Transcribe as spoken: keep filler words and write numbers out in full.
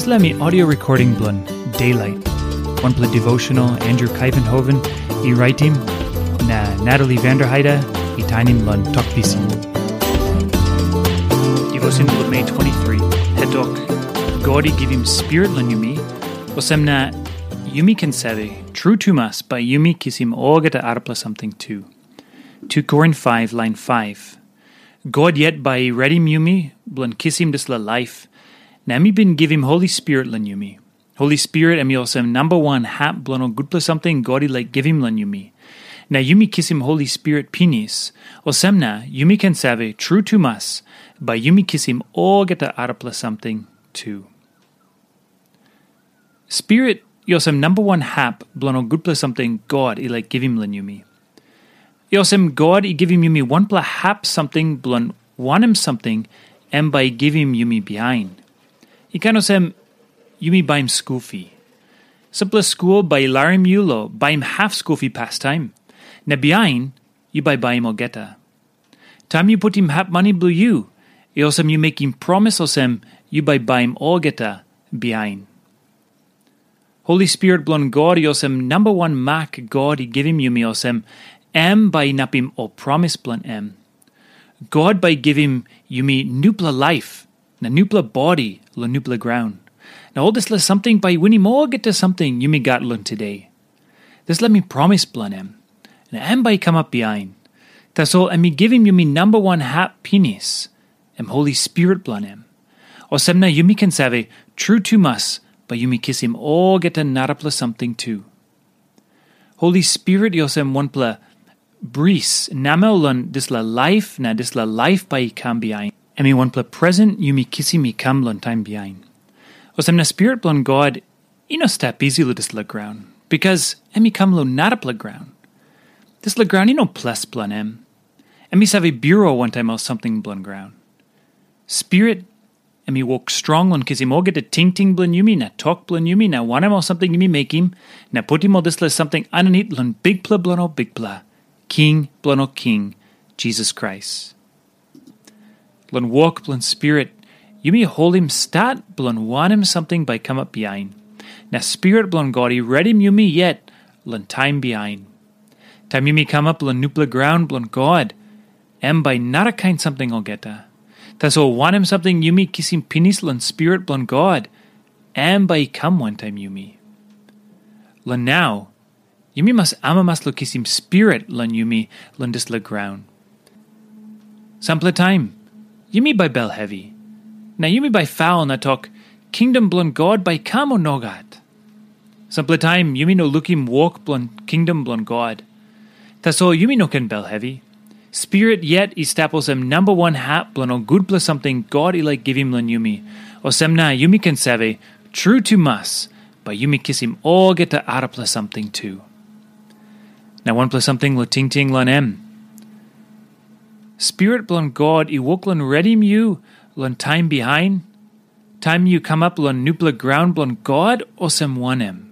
Dispela mi audio recording bilong Daylight. Wanpela devotional Andrew Kaivenhoven i raitim, na Natalie Vanderheide i tainim long Tok Pisin. Devotion bilong Mei twenty-three, hetok, God i givim spirit long yumi, olsem na yumi ken save, tru tumas bai yumi kisim olgeta arapela samting tu. two Korin five, lain five. God yet bai i redim yumi bilong kisim dispela laip, na em i bin givim Holi Spirit long yumi. Holi Spirit em i olsem namba wan hap bilong ol gutpela samting God i laik givim long yumi. Na yumi kisim Holi Spirit pinis, olsem na yumi ken save, tru tumas, bai yumi kisim olgeta arapela samting tu. Spirit i olsem namba wan hap bilong ol gutpela samting God i laik givim long yumi. I olsem God i givim yumi wanpela hap samting bilong wanem samting em bai i givim yumi bihain. I kain olsem yumi baim skul fi. Sampela skul bai i larim yu long baim hap skul fi pastaim, na bihain yu bai baim olgeta. Taim yu putim hap mani bilong yu, i olsem yu mekim promis olsem yu bai baim olgeta bihain. Holi Spirit bilong God i olsem namba wan mak God i givim yumi olsem, em bai inapim ol promis bilong em. God bai i givim yumi nupela laip na nupela bodi long nupela graun. Na ol dispela samting bai i winim olgeta samting yumi gat long today. Dispela mi promis bilong em, na em bai i kamap bihain. Tasol em i givim yumi namba wan hap pinis, em Holi Spirit bilong em. Olsem na yumi ken save, tru tumas, bai yumi kisim olgeta narapela samting tu. Holi Spirit i olsem wanpela bris namel long dispela laip na dispela laip bai i kam bihain. Em i wanpela presen yumi kisim i kam long taim bihain. Olsem na Spirit bilong God i no stap isi long dispela graun, bikas em i kam long narapela graun. Dispela graun i no ples bilong em. Em i save birua wantaim ol samting bilong graun. Spirit, em i wok strong long kisim olgeta tingting bilong yumi na tok bilong yumi na wanem ol samting yumi mekim, na putim ol dispela samting aninit long Bikpela bilong ol bikpela, King bilong ol king, Jisas Krais. Long wok bilong Spirit, yumi holim stat bilong wanem samting bai kamap bihain. Na Spirit bilong God i redim yumi yet long taim bihain. Taim yumi kamap long nupela graun bilong God, em bai narakain samting olgeta. Tasol wanem samting yumi kisim pinis long Spirit bilong God, em bai i kam wantaim yumi. Long nau, yumi mas amamas long kisim Spirit long yumi long dispela graun. Sampela taim, yumi bai bel hevi. Na yumi bai faul na tok, kingdom bilong God bai kam o nogat? Sampela taim yumi no lukim wok bilong kingdom bilong God. Tasol yumi no ken bel hevi. Spirit yet i stap olsem namba wan hap bilong ol gutpela samting God i laik givim long yumi. Olsem na yumi ken save, tru tumas, bai yumi kisim olgeta arapela samting tu. Na wanpela samting long tingting long em. Spirit bilong God i wok long redim yu long taim bihain, taim yu kamap long nupela graun bilong God, olsem wanem?